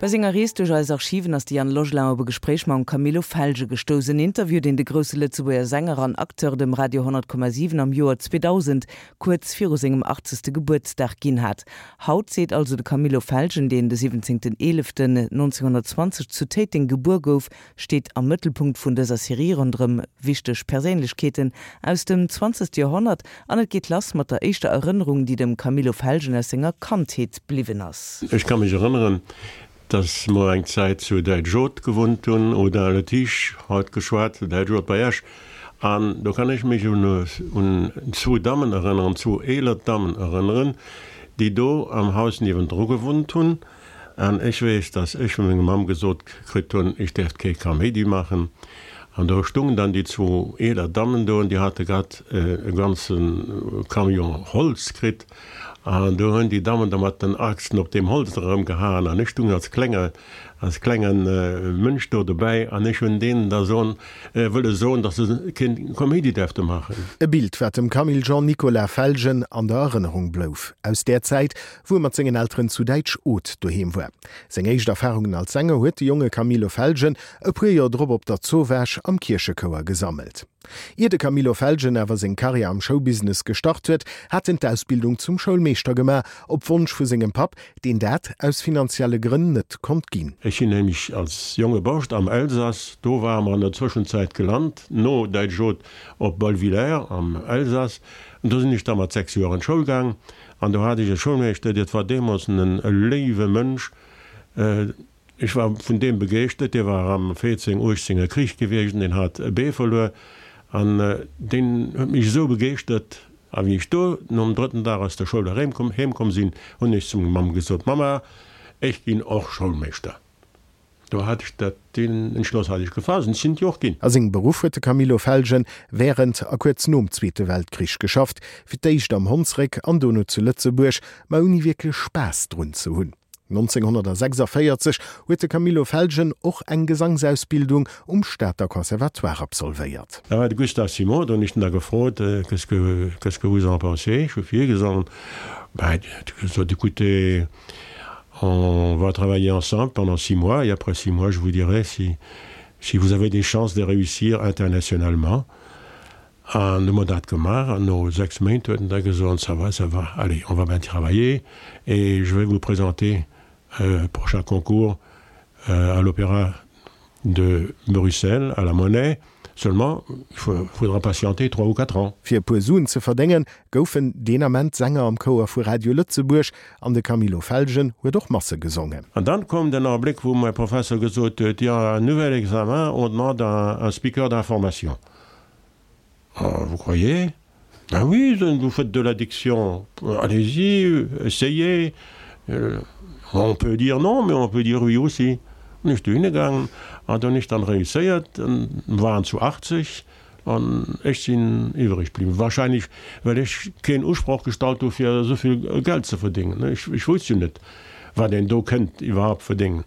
Bei senger Rees duerch eis Archiven ass de Yann Logelin op e Gespréich mam Camillo Felgen gestouss. En Interview, deen de grousse Lëtzebuerger Sänger an Acteur dem Radio 100,7 am Joer 2000, kuerz viru sengem achtzegste Gebuertsdag ginn hat. Haut seet also de Camillo Felgen, deen de 17.11.1920 zu Téiteng gebuer gouf, steet am Mëttelpunkt vun dëser Serie ronderëm wichteg Perséinlechkeeten aus dem zwanzegste Joerhonnert an et geet lass mat der éischter Erënnerung, déi dem Camillo Felgen aus senger Kandheet bliwwen ass. Ech ka mech erënneren, dass mer eng Zäit zu Däitsch-Oth gewunnt hunn, Audun-le-Tiche haut geschwat, Däitsch-Oth bei Esch, an do kann ech mech un zwou Dammen erënneren, zwou eeler Dammen erënneren, déi do am Haus niewendru gewunnt hunn. An ech weess, dass ech vu menger Mamm gesot kritt hunn, ech däerft kee Kaméidi maachen. An do stungen dann déi zwou eeler Dammen do an déi hate grad e ganze Camion Holz kritt. An do hunn déi Dammen da mat den Achsen op deem Holz erëmgehaen an ech stung als klenge, als klenge Mënsch do dobäi an ech hunn deenen da soen, wëlle soen, dass se kee Kaméidi däerfte maachen. E Bild, wat dem Camille Jean Nicolas Felgen an der Erënnerung blouf aus där Zäit, wou e mat sengen Elteren zu Däitsch-Oth doheem war. Seng éischt Erfarungen als Sänger huet de jonge Camillo Felgen e puer Joer drop op der Zowaasch am Kierchechouer gesammelt. Ier de Camillo Felgen awer seng Karriär am Showbusiness gestart huet, hat en d'Ausbildung zum Schoulmeeschter gemaach, op Wonsch vu sengem Papp, deen dat aus finanzielle Grënn net konnt ginn. Ech sinn nämlech als jonge Borscht am Elsass, do ware mer an der Zwëschenzäit gelant, no Däitsch-Oth op Bollwiller am Elsass, an do sinn ech da mat 6 Joer an d'Schoul gaang. An do hat ech e Schoulmeeschter, dat war deemools en léiwe Mënsch, ech war vun deem begeeschtert, dee war am 14, 18 er Krich gewiescht an deen hat e Bee verluer an deen huet mech esou begeeschtert. A wéi ech do nom drëtten Dag aus der Schoul erém heem komm sinn, hunn ech zu meng Mamm gesot, Mamma, ech ginn och Schoulmeeschter. Do hat ech dat, deen Entschloss hat ech gefaasst an ech sinn et jo och ginn. A sengem Beruff huet de Camillo Felgen wärend a kuerz nom Zweete Weltkrich geschafft, fir d'éischt am Honnsréck an dono zu Lëtzebuerg, ma ouni wierklech Spaass drun ze hunn. 1946 huet de Camillo Felgen och eng Gesangsausbildung um Stater Conservatoire absolvéiert. Da war de Gustave Simon do, hunn ech en da gefrot, Qu'est-ce que, qu'est-ce que vous en pensez? Ech hu virgesongen. Ben, huet e gesot, Écoutez, On va travailler ensemble pendant 6 mois et après 6 mois je vous dirai si si vous avez des chances de réussir internationalement. An hu mer dat gemaach an no 6 Méint huet en da gesot, ça va, ça va, allez, on va bien travailler et je vais vous présenter au prochain concours à l'Opéra de Bruxelles, à la Monnaie, seulement il faudra patienter 3 ou 4 ans. Fir e puer Suen ze verdéngen, goufen deen Ament Sänger am Chouer vu Radio Lëtzebuerg an de Camillo Felgen huet och Masse gesongen. An dann koum den Abléck, wou mäi Professor gesot huet, Il y a un nouvel examen, on demande un speaker d'information. Vous croyez? Ben oui, vous faites de la diction, allez-y, essayez. On peut dire non, mais on peut dire oui aussi. Hunn ech dohinne gaangen an do hunn ech dann réusséiert, waren zu 80 an ech sinn iwwreg bliwwen. Wahrscheinlech well ech keen Usproch gestallt hu fir esou vill Geld ze verdéngen. Ech wousst jo net wat een do kënnt iwwerhaupt verdéngen.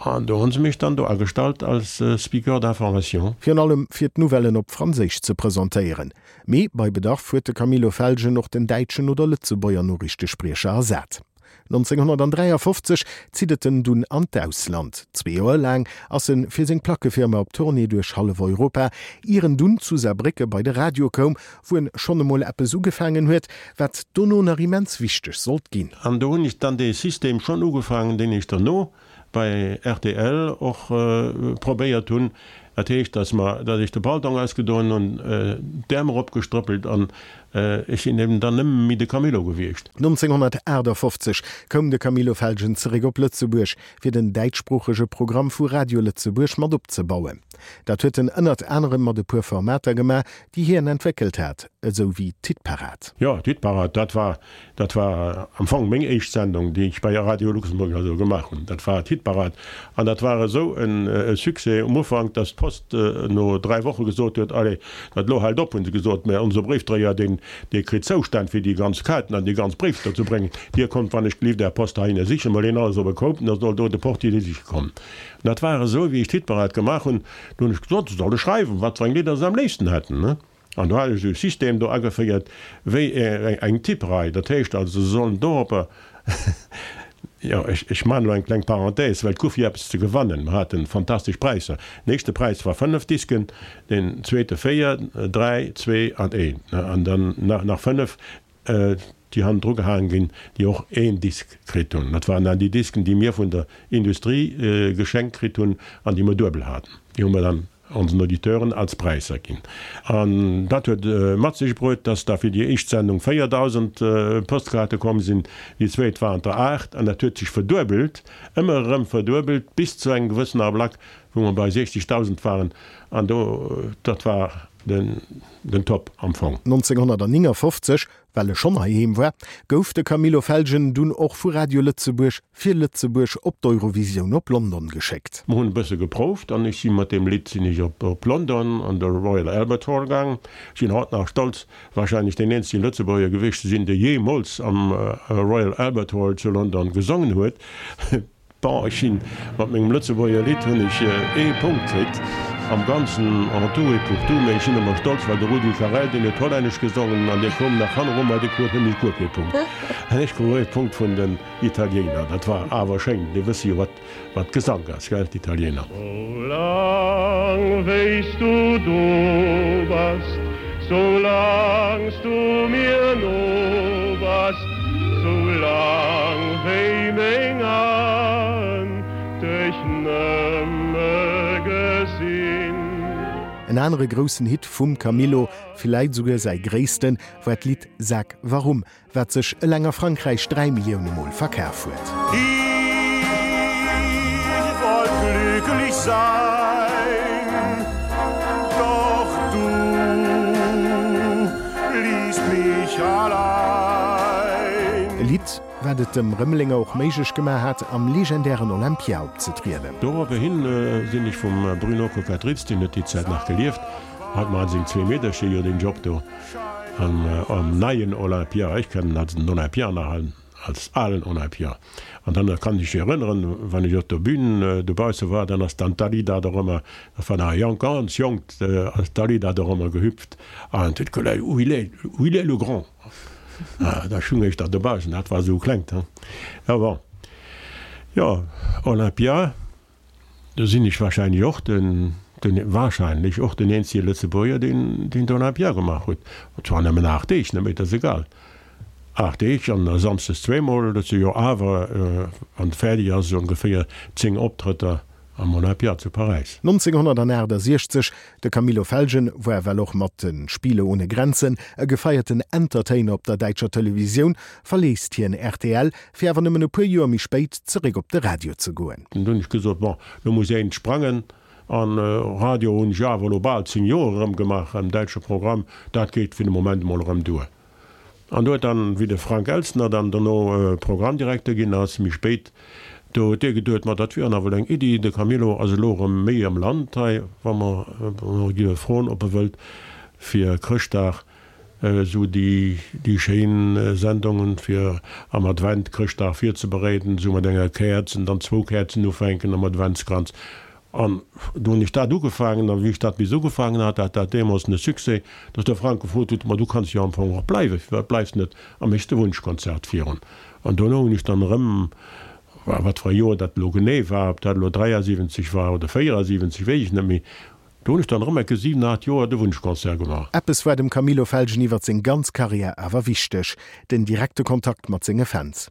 An do hu se mech dann do agestallt als Speaker d'information. Virun allem fir d'Nouvellen op Franséisch ze presentéieren. Mee bei Bedarf huet de Camillo Felgen och den däitschen oder Lëtzebuerger Noriichtespriecher ersat. 1953 zitt et en dunn an d'Ausland. Zwee Joer laang ass en fir seng Plackefirma op Tournée duerch hallef Europa, ier en dunn zu Saarbrécke bei de Radio koum, wou en schonn emol eppes ugefaangen huet, wat dono nach immens wichteg sollt ginn. An do hunn ech dann dee System schonn ugefaangen, deen ech derno bei rtl och probéiert hunn. Dat heescht, datt mer, datt ech de Paltong ausgedoen hunn, d'Äerm eropgestrëppelt an ech sinn eben dann nëmme méi de Camillo gewiescht. 1958 koum de Camillo Felgen zeréck op Lëtzebuerg, fir den däitschsproochege Programm vu Radio Lëtzebuerg mat opzebauen. Dat huet en ënnert anerem mat e puer Formater gemaach, déi hien entwéckelt hat, esou wéi d'Hitparad. Jo, d'Hitparad, dat war Dat war am Fong meng éischt Sendung, déi ech bei Radio Luxemburg also gemaach hunn. Dat war d'Hitparad. An dat war esou e Succès um Ufank, dass d'Post no 3 Woche gesot huet, Allez, dat elo hält op, hu se gesot, mä onse Bréifdréier, deen, dee kritt Zoustänn, fir déi ganz Kaarten an déi ganz Bréifter ze bréngen. Dir kommt wann ech gelift Är Post heihinne sichen, mol een alles op e Koup, da soll do de Portier déi siche kommen. An dat war esou, wéi ech d'Hitparad gemaach hunn, do hunn ech gesot, se solle schreiwen, wat fir eng Lidder se am léifsten hätten. An do hat ech esou e System do ageféiert wéi eng Tipperei. Dat heescht also, se sollen doropper. Jo, ech, ech maachen elo eng kleng Parenthèse, well et gouf jo eppes ze gewannen. Mer haten fantastesch Präisser. Den éischte Präis war 5 Disken, den zweete 4, 3, 2 an 1. An dann nach, nach 5, déi hannendru gehaange ginn, déi och een Disk kritt hunn. Dat waren dann déi Disken, déi mir vun der Industrie geschenkt kritt hunn an déi mer duebel haten. Déi hu mer dann onsen Auditeuren als Präisser ginn. An dat huet mat sech bruet, dass da fir déi éischt Sendung 4.000 Postkaarte komm sinn, déi zweet waren der 8, an dat huet sech verduebelt, ëmmer erëm verduebelt, bis zu engem gewëssen Ablack, wou mer bei 60.000 waren. An do, dat war den, den Top am Fong. 1959 Well e schonn heiheem war, gouf de Camillo Felgen dunn och vu Radio Lëtzebuerg fir Lëtzebuerg op d'Eurovisioun op London geschéckt. Mer hunn e bësse geprouft an ech si mat deem Lidd sinn ech op London an de Royal Albert Hall gaang. Ech sinn haut nach stolz, warscheinlech deen eenzege Lëtzebuerger gewiescht ze sinn, dee jeemools am Royal Albert Hall zu London gesongen huet. Bon, ech sinn mat mengem Lëtzebuerger Lidd hunn ech ee Punkt kritt am Ganzen, en tout et pour tout, mee ech sinn ëmmer stolz, well de Rudi Carrell, deen huet Hollännesch gesongen an dee koum nach hanneru mer, dee krut nämlech guer kee Punkt an ech krut ee Punkt vun den Italiener. Dat war awer schéin, déi wësse jo wat wat Gesank ass, gell, d'Italiener. Soulaang wéis du do bass, soulaangs du mir no bass, Soulaang wéi meng Aen dech nëmme gesinn. En anere groussen Hit vum Camillo, villäit esouguer säi gréissten, war d'Lidd Sag warum, wat sech eleng a Frankräich 3 Millioune Mol verkaf huet. Ich wollt glücklich sein, doch du ließt mich allein. E Lidd, wat et dem Rëmelenger och méiglech gemaach hat, am legendären Olympia opzetrieden. Doropperhin sinn ech vum Bruno Coquatrix, deen huet déi Zäit nach gelieft, hat mat seng zwee Meedercher jo deen Job do am neien Olympia, ech kennen als den Olympia nach als alen Olympia. An dann kann ech mech erënneren, wann ech op der Bühn dobausse war, dann ass dann d'Dalida dorëmmer, dat war nach e jonk, ganz jonkt, ass d'Dalida dorëmmer gehüpft an huet geléi, Où il est, où il est le grand? Da stung ech da dobaussen, dat war esou klengt, he. Jo, bon, jo, Olympia. Do sinn ech wahrscheinlech och den, den, wahrscheinlech och den eenzege Lëtzebuerger, deen, deen d'Olympia gemaach huet. Zwar nëmmen 8 Deeg, ne, mee dat ass egal. 8 Deeg an da samsdes zweemol, dat si jo awer, wann et fäerdeg ass, esou ongeféier 10 Optrëtter am Olympia zu Paräis. 1968, De Camillo Felgen war well och mat den Spiele ohne Grenzen e gefeierten Entertainer op der däitscher Televisioun, verléisst hien rtl, fir awer nëmmen e puer Joer méi spéit zeréck op de Radio ze goen. Dunn hunn ech gesot, bon, lo muss een sprangen. An Radio hunn ech awer elo bal 10 Joer erëm gemaach am däitsche Programm, dat geet fir de Moment emol erëm duer. An do huet dann, wéi de Frank Elstner dann dono Programmdirekter ginn ass, méi spéit, do huet dee geduet, ma dat wier nawell eng Iddi, de Camillo ass elo erëm méi am Land hei, wa mer e géife froen, ob e wëllt fir Chrëschtdag esou déi, déi schéin Sendungen fir am Advent Chrëschtdag virzebereeden, esou mat enger Käerz an dann zwou Käerzen ufänken am Adventskranz. An do hunn ech dat ugefaangen, a wéi ech dat bis ugefaangen hat, hat dat deemools e Succès, datt de Frank gefrot huet, Ma du kanns jo am Fong och bleiwen, firwat bleifs de net a méchs de Wunschkonzert virun? An dono hunn ech dann erëm, wat fir e Joer dat elo genee war, ob dat elo 73 war oder 74, weess ech net méi, do hunn ech dann erëm enke 7, 8 Joer de Wunschconcert gemaach. Eppes war dem Camillo Felgen iwwer seng ganz Karriär awer wichteg, den direkte Kontakt mat senge Fans.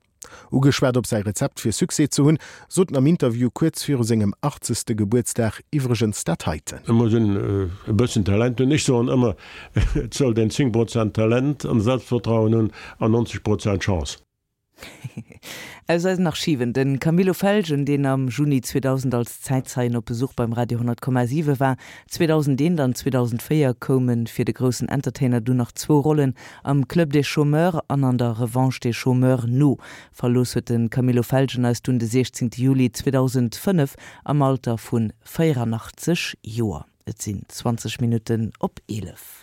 Ugeschwat op säi Rezept fir Succès ze hunn, sot en am Interview kuerz viru sengem 80. Gebuertsdag iwwregens dat heiten. Et muss een e bëssen Talent hunn. Ech soen ëmmer, et sollt een 10 Prozent Talent an Selbstvertrauen hunn an 90 Prozent Chance. Aus eisen Archiven, De Camillo Felgen, deen am Juni 2000 als Zäitzeien op Besuch beim Radio 100,7 war. 2001 an 2004 koume fir de groussen Entertainer dunn nach zwou Rollen Am Club des Chômeurs an an der Revanche des Chômeurs no. Verlooss huet de Camillo Felgen eis dunn de 16 Juli 2005 am Alter vu 84 Joer. Et sinn 20 Minutten op 11.